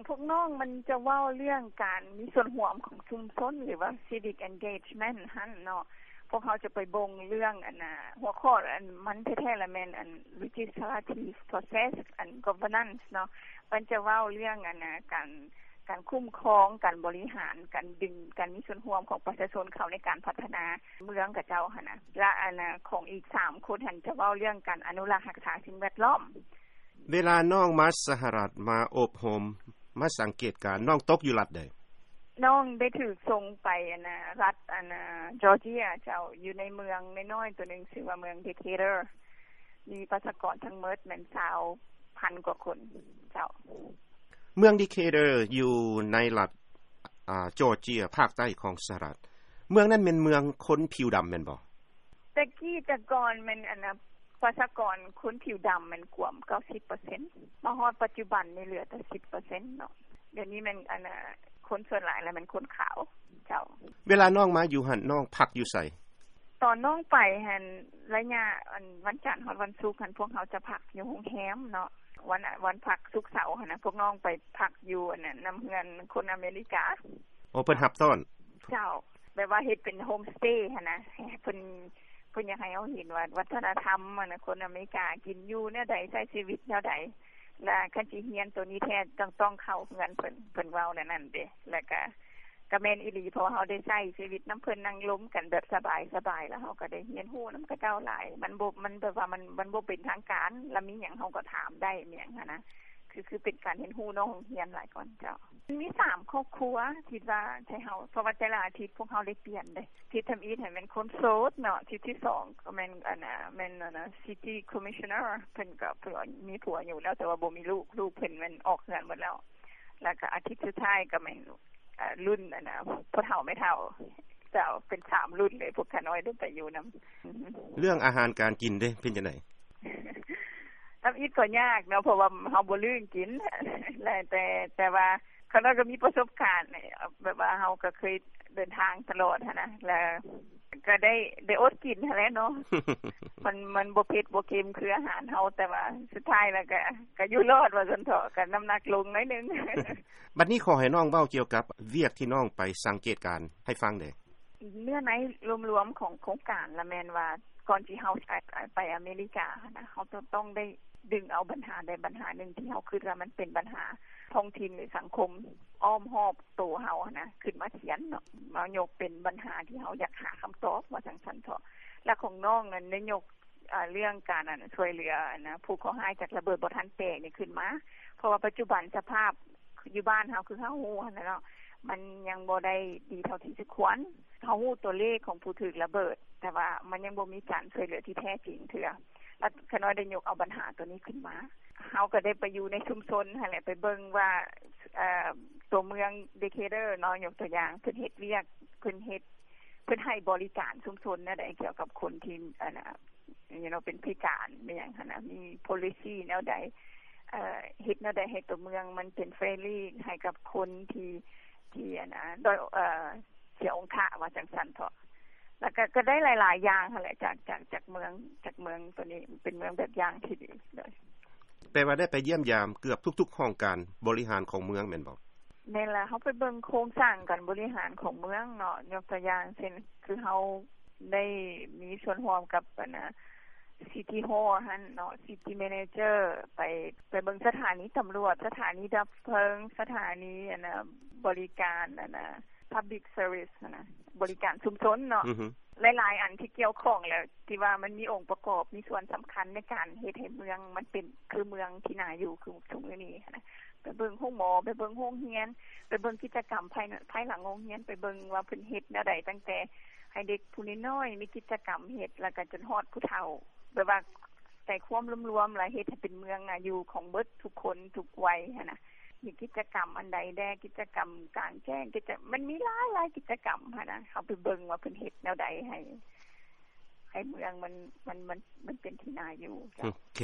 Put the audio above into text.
ພວກນ້ອງມັນຈະເວົ້າເລື່ອງການມີສ່ວນຮ່ວມຂອງຊຸມຊົນ ຫຼືວ່າ civic engagement ຫັ້ນເນາະ. ພວກເຮົາຈະໄປເບິ່ງເລື່ອງອັນນ່າ ຫົວຂໍ້ອັນມັນແທ້ໆລະແມ່ນອັນ legislative process and governance ເນາະ. ມັນຈະເວົ້າເລື່ອງອັນນ່າ ການ ການຄຸ້ມຄອງ ການບໍລິຫານ ການດຶງ ການມີສ່ວນຮ່ວມຂອງປະຊາຊົນເຂົ້າໃນການພັດທະນາເມືອງຂະເຈົ້າຫັ້ນນະ. ລະອັນນ່າ ຂອງອີກສາມຄົນຫັ້ນຈະເວົ້າເລື່ອງການອະນຸລັກຮັກສາສິ່ງແວດລ້ອມ. ເວລານ້ອງມາສະຫະລັດ ມາອົບຮົມ ມາສັງເກດການ ນ້ອງຕົກຢູ່ລັດໃດ? ນ້ອງໄດ້ຖືກສົ່ງໄປອັນນ່າ ລັດອັນນ່າ Georgia ເຈົ້າ, ຢູ່ໃນເມືອງນ້ອຍໆໂຕໜຶ່ງ ຊື່ວ່າເມືອງ Decatur. ມີປະຊາກອນທັງໝົດແມ່ນຊາວພັນກວ່າຄົນເຈົ້າ. ເມືອງ Decatur ຢູ່ໃນລັດ ອາ Georgia ພາກໃຕ້ຂອງສະຫະລັດ. ເມືອງນັ້ນແມ່ນເມືອງຄົນຜິວດຳແມ່ນບໍ່? ແຕ່ກີ້ແຕ່ກ່ອນແມ່ນອັນນ່າ ປະຊາກອນຄົນຜິວດຳແມ່ນກວມເກົ້າສິບເປີເຊັນ, ມາຮອດປັດຈຸບັນນີ້ເຫຼືອແຕ່ສິບເປີເຊັນເນາະ. ດຽວນີ້ແມ່ນອັນນ່າ ຄົນສ່ວນຫຼາຍລະແມ່ນຄົນຂາວເຈົ້າ. ເວລານ້ອງມາຢູ່ຫັ້ນ ນ້ອງພັກຢູ່ໃສ? ຕອນນ້ອງໄປຫັ້ນ ໄລຍະອັນວັນຈັນຮອດວັນສຸກຫັ້ນ ພວກເຮົາຈະພັກຢູ່ໂຮງແຮມເນາະ. ວັນ ວັນພັກສຸກເສົາຫັ້ນນະ ພວກນ້ອງໄປພັກຢູ່ອັນນັ້ນ ນຳເຮືອນຄົນອາເມລິກາ. ໂອ ເພິ່ນຮັບຕ້ອນ. ເຈົ້າ. ແບບວ່າເຮັດເປັນໂຮມສະເຕຫັ້ນນະ ເພິ່ນ ເພິ່ນຢາກໃຫ້ເຮົາເຫັນວ່າວັດທະນະທຳຫັ້ນນະ ຄົນອາເມລິກາກິນຢູ່ແນວໃດ ໃຊ້ຊີວິດແນວໃດ. ລະຄັນຊິຮຽນໂຕນີ້ແທ້ ຕ້ອງ ຕ້ອງເຂົ້າເຮືອນເພິ່ນ ເພິ່ນເວົ້າແນວນັ້ນເດ້. ລະກະ ກະແມ່ນອີ່ຫຼີ ເພາະວ່າເຮົາໄດ້ໃຊ້ຊີວິດນຳເພິ່ນ ນັ່ງລົມກັນແບບສະບາຍໆ ລະເຮົາກະໄດ້ຮຽນຮູ້ນຳເຂົາເຈົ້າຫຼາຍ. ມັນບໍ່ ມັນແບບວ່າມັນ ມັນບໍ່ເປັນທາງການ ລະມີຫຍັງເຮົາກະຖາມໄດ້ ມີຫຍັງຫັ້ນນະ. ຄື ຄືເປັນການຮຽນຮູ້ນອກໂຮງຮຽນຫຼາຍກວ່າເຈົ້າ. ມີສາມຄອບຄົວ ຄິດວ່າໃຫ້ເຮົາ ເພາະວ່າແຕ່ລະອາທິດພວກເຮົາໄດ້ປ່ຽນເດ້. ທິດທຳອິດຫັ້ນແມ່ນຄົນໂສດເນາະ, ທິດທີສອງກະແມ່ນອັນນ່າ ແມ່ນອັນນ່າ city commissioner ເພິ່ນກະ ເພິ່ນມີຜົວຢູ່ແລ້ວ ແຕ່ວ່າບໍ່ມີລູກ ລູກເພິ່ນແມ່ນອອກເຮືອນໝົດແລ້ວ. ລະກະອາທິດສຸດທ້າຍກະແມ່ນ ເອີ່ ລຸ້ນອັນນ່າ ພໍ່ເຖົ້າແມ່ເຖົ້າ ເຈົ້າ ເປັນສາມລຸ້ນເລີຍ ພວກຂ້ານ້ອຍໄດ້ໄປຢູ່ນຳ. ເລື່ອງອາຫານການກິນເດ ເປັນຈັ່ງໃດ? ທຳອິດກໍຍາກເນາະ ເພາະວ່າເຮົາບໍ່ລຶ້ງກິນ ແລະ ແຕ່ ແຕ່ວ່າຂ້ານ້ອຍກໍມີປະສົບການ ແບບວ່າເຮົາກໍເຄີຍເດີນທາງຕະຫຼອດຫັ້ນນະ ແລະ ກໍໄດ້ ໄດ້ອົດກິນຫັ້ນແຫຼະເນາະ. ມັນ ມັນບໍ່ເຜັດບໍ່ເຄັມຄືອາຫານເຮົາ ແຕ່ວ່າສຸດທ້າຍແລ້ວກໍ ກໍຢູ່ລອດວ່າຊັ້ນເຖາະ ກໍນ້ຳໜັກລົງໜ້ອຍໜຶ່ງ. ບັດນີ້ຂໍໃຫ້ນ້ອງເວົ້າກ່ຽວກັບວຽກທີ່ນ້ອງໄປສັງເກດການໃຫ້ຟັງແດ່. ເນື້ອໃນລວມໆຂອງໂຄງການລະແມ່ນວ່າ ກ່ອນທີ່ເຮົາ ໄປອາເມລິກາຫັ້ນນະ ເຮົາຕ້ອງ ຕ້ອງໄດ້ດຶງເອົາບັນຫາໃດບັນຫາໜຶ່ງທີ່ເຮົາຄິດວ່າມັນເປັນບັນຫາທ້ອງຖິ່ນ ຫຼື ສັງຄົມອ້ອມຮອບໂຕເຮົາຫັ້ນນະ ຂຶ້ນມາຂຽນເນາະ ມາຍົກເປັນບັນຫາທີ່ເຮົາຢາກຫາຄຳຕອບ ວ່າຈັ່ງຊັ້ນເຖາະ. ແລະ ຂອງນ້ອງນັ້ນໄດ້ຍົກ ເອີ່ ເລື່ອງການ ອັນ ຊ່ວຍເຫຼືອ ອັນນະ ຜູ້ເຄາະຮ້າຍຈາກລະເບີດບໍ່ທັນແຕກນີ້ຂຶ້ນມາ ເພາະວ່າປັດຈຸບັນສະພາບຢູ່ບ້ານເຮົາ ຄືເຮົາຮູ້ຫັ້ນນະເນາະ ມັນຍັງບໍ່ໄດ້ດີເທົ່າທີ່ສົມຄວນ. ເຮົາຮູ້ຕົວເລກຂອງຜູ້ຖືກລະເບີດ ແຕ່ວ່າມັນຍັງບໍ່ມີການຊ່ວຍເຫຼືອທີ່ແທ້ຈິງເທື່ອ ແລ້ວຂ້ານ້ອຍໄດ້ຍົກເອົາບັນຫາໂຕນີ້ຂຶ້ນມາ. ເຮົາກໍໄດ້ໄປຢູ່ໃນຊຸມຊົນຫັ້ນແຫຼະ ໄປເບິ່ງວ່າ ເອີ່ ຕົວເມືອງ Decatur ເນາະ ຍົກຕົວຢ່າງ ເພິ່ນເຮັດວຽກ ເພິ່ນເຮັດ ເພິ່ນໃຫ້ບໍລິການຊຸມຊົນແນວໃດ ກ່ຽວກັບຄົນທີ່ ອັນນະ you know ເປັນພິການ ມີຫຍັງຫັ້ນນະ ມີ policy ແນວໃດ ເອີ່ ເຮັດແນວໃດໃຫ້ຕົວເມືອງມັນເປັນ friendly ໃຫ້ກັບຄົນທີ່ ທີ່ ອັນນະ ດ້ອຍ ເອີ່ ເສຍອົງຄະ ວ່າຈັ່ງຊັ້ນເຖາະ. ແລ້ວກໍ ກໍໄດ້ຫຼາຍໆຢ່າງຫັ້ນແຫຼະ ຈາກ ຈາກ ຈາກເມືອງ ຈາກເມືອງໂຕນີ້ ເປັນເມືອງແບບຢ່າງທີ່ດີ. ໂດຍ ແປວ່າໄດ້ໄປຢ້ຽມຢາມເກືອບທຸກໆຫ້ອງການບໍລິຫານຂອງເມືອງແມ່ນບໍ່? ແມ່ນລະ ເຮົາໄປເບິ່ງໂຄງສ້າງການບໍລິຫານຂອງເມືອງເນາະ ຍົກຕົວຢ່າງເຊັ່ນ ຄືເຮົາໄດ້ມີສ່ວນຮ່ວມກັບ ອັນນະ city hall ຫັ້ນເນາະ city manager ໄປ ໄປເບິ່ງສະຖານີຕຳຫຼວດ ສະຖານີດັບເພີງ ສະຖານີ ອັນນະ ບໍລິການ ອັນນະ public service ຫັ້ນນະ ບໍລິການຊຸມຊົນເນາະ ຫຼາຍໆອັນທີ່ກ່ຽວຂ້ອງ ແລ້ວທີ່ວ່າມັນມີອົງປະກອບ ມີສ່ວນສຳຄັນໃນການເຮັດໃຫ້ເມືອງມັນເປັນຄືເມືອງທີ່ໜ້າຢູ່ຄືທຸກມື້ນີ້ຫັ້ນນະ. ໄປເບິ່ງໂຮງໝໍ ໄປເບິ່ງໂຮງຮຽນ ໄປເບິ່ງກິດຈະກຳພາຍ ພາຍຫຼັງໂຮງຮຽນ ໄປເບິ່ງວ່າເພິ່ນເຮັດແນວໃດ ຕັ້ງແຕ່ໃຫ້ເດັກຜູ້ນ້ອຍໆມີກິດຈະກຳເຮັດ ແລ້ວກໍຈົນຮອດຜູ້ເຖົ້າ ແບບວ່າໃຈຄວາມລວມໆ ແລ້ວເຮັດໃຫ້ເປັນເມືອງໜ້າຢູ່ຂອງເບິດທຸກຄົນທຸກໄວຫັ້ນນະ. ມີກິດຈະກຳອັນໃດແດ່ ກິດຈະກຳກາງແຈ້ງ ກິດຈະ ມັນມີຫຼາຍໆກິດຈະກຳຫັ້ນນະ ເຮົາໄປເບິ່ງວ່າເພິ່ນເຮັດແນວໃດໃຫ້ ໃຫ້ເມືອງມັນ ມັນ ມັນ ມັນເປັນທີ່ໜ້າຢູ່. ໂອເຄ.